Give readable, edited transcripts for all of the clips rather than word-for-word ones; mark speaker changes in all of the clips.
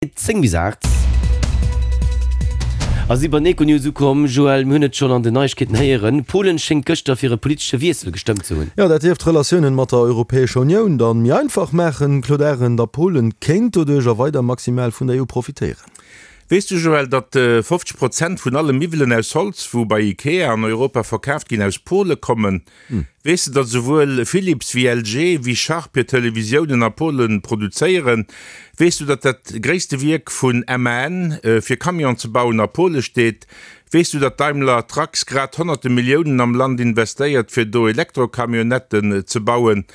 Speaker 1: 10 bis 8 a si bei den Econews ukomm. Joël, mir hunn et schonn an den Neiegkeeten héieren, Polen schéngt gëschter fir e politesche Wiessel gestëmmt ze hunn.
Speaker 2: Jo, dat dierft d'Relatiounen mat der Europäescher Unioun dann méi einfach maachen, Claude Arend. A Polen kéint doduerch a weider maximal vun der EU profitéieren.
Speaker 3: Weess du, Joël, datt 50 Prozent vun alle Miwwelen aus Holz, wou bei Ikea an Europa verkaaft ginn, aus Pole kommen? Weess de, datt esouwuel Philips wéi LG wéi Sharp hir Televisiounen a Polen produzéieren? Weess du, datt dat gréisste Wierk vun MAN fir Camion ze bauen a Pole steet? Weess du, datt Daimler Trucks grad honnerte Milliounen am Land investéiert fir do Elektrocamionnetten ze bauen?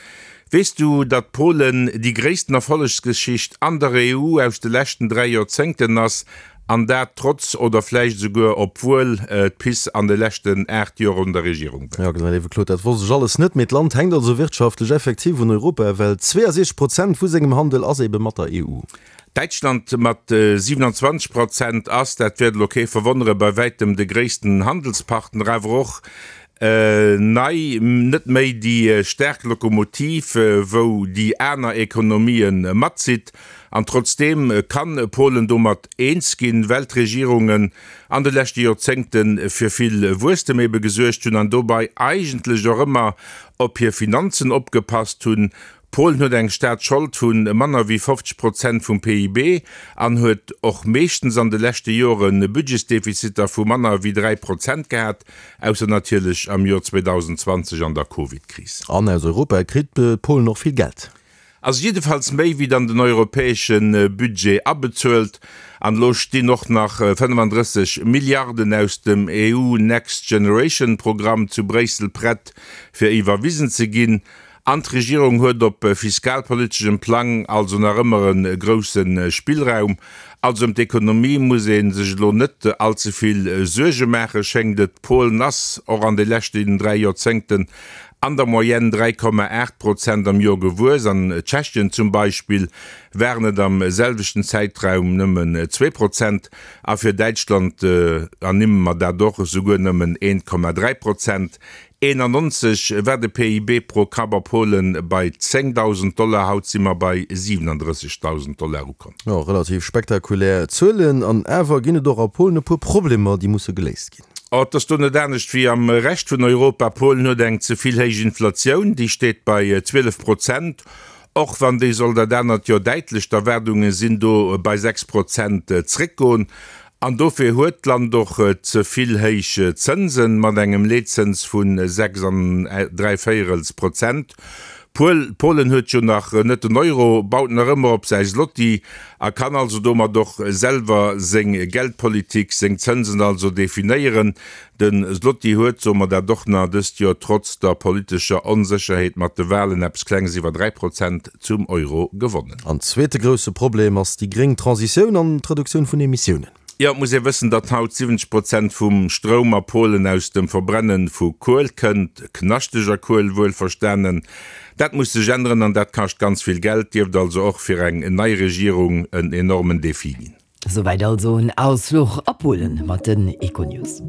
Speaker 3: Weess du, datt Polen déi gréissten Erfollegsgeschicht an der EU aus de leschten 3 Joerzéngten ass An dat trotz, oder vläicht esouguer obwuel, d'PiS an de leschten 8 Joer un der Regierung
Speaker 2: war. Jo, genau, léiwe Claude, dat wosst ech alles net. Mee d'Land hänkt also wirtschaftlech effektiv un Europa, well 62 Prozent vu sengem Handel ass ebe mat der EU.
Speaker 3: Däitschland mat 27 Prozent ass, dat wäert elo kee verwonnere, bei wäitem de gréissten Handelspartner, awer och nei net méi déi staark Lokomotiv, wou déi aner Ekonomië matzitt. An trotzdeem kann Polen domat eens ginn, well d'Regierungen an de leschte Joerzéngte fir vill Wuesstem ebe gesuergt hunn an dobei eigentlech och ëmmer op hir Finanzen opgepasst hunn. Polen huet eng Staatsschold vu manner wéi 50 Prozent vum PIB an huet och meeschtens an de leschte Jore Budgetsdefiziter vu manner wéi 3 Prozent gehat, ausser natierlech am Joer 2020 an der Covid-Kris.
Speaker 2: An aus Europa kritt Polen och vill Geld.
Speaker 3: Ass jiddefalls méi wéi dann den europäesche Budget abezuelt. An elo stinn och nach 35 Milliarden aus dem EU Next Generation Programm zu Bréissel prett fir iwwerwisen ze ginn. An d'Regierung huet op fiskalpoliteschem Plang also nach ëmmer e grousse Spillraum. Also ëm d'Ekonomie muss ee sech elo net all ze vill Suerge maachen, schéngt et. Polen ass och an de leschten 3 Joerzéngten an der Moyenne 3,8 Prozent am Joer gewuess. An Tschechien zum Beispill waren et am selwechten Zäitraum nëmmen 2 Prozent a fir Däitschland ernimme mer dat och, esouguer nëmmen 1,3 Prozent. 91 war de PIB pro Kapp a Polen bei 10.000 Dollar, haut si mer bei 37.000 Dollar ukomm.
Speaker 2: Jo, relativ spektakulär Zuelen. An awer ginn et och a Polen e puer Problemer, déi musse geléist ginn.
Speaker 3: Et ass do net anescht wéi am Rescht vun Europa. Polen huet eng ze vill héich Inflatioun, déi steet bei 12 Prozent, och wann déi soll dat anert Joer däitlech, d'Erwaardunge sinn do bei 6 Prozent, zréckgoen. An dofir huet d'Land och ze vill héich Zënsen, mat engem Leetzëns vu 6 an dräivéierels Prozent. Polen huet jo nach net den Euro, baut nach ëmmer op säi Zloty a kann also domat och selwer seng Geldpolitik, seng Zënsen also definéieren. De Zloty huet, soe mer dat och nach, dëst Joer trotz der politescher Onsécherheet mat de Walen eppes Klenges iwwer 3 Prozent zum Euro gewonnen.
Speaker 2: An zweete grousse Problem ass déi gréng Transitioun an d'Reduktioun vun Emissiounen.
Speaker 3: Jo, et muss ee wëssen, datt haut 70 Prozent vum Stroum a Polen aus dem Verbrenne vu Kuel kënnt, knaschteger Kuel wuelverstanen. Dat muss sech änneren an dat kascht ganz vill Geld, dierft also och fir eng nei Regierung en enormen Defi ginn.
Speaker 1: Souwäit also en Ausfluch a Polen mat den Econews.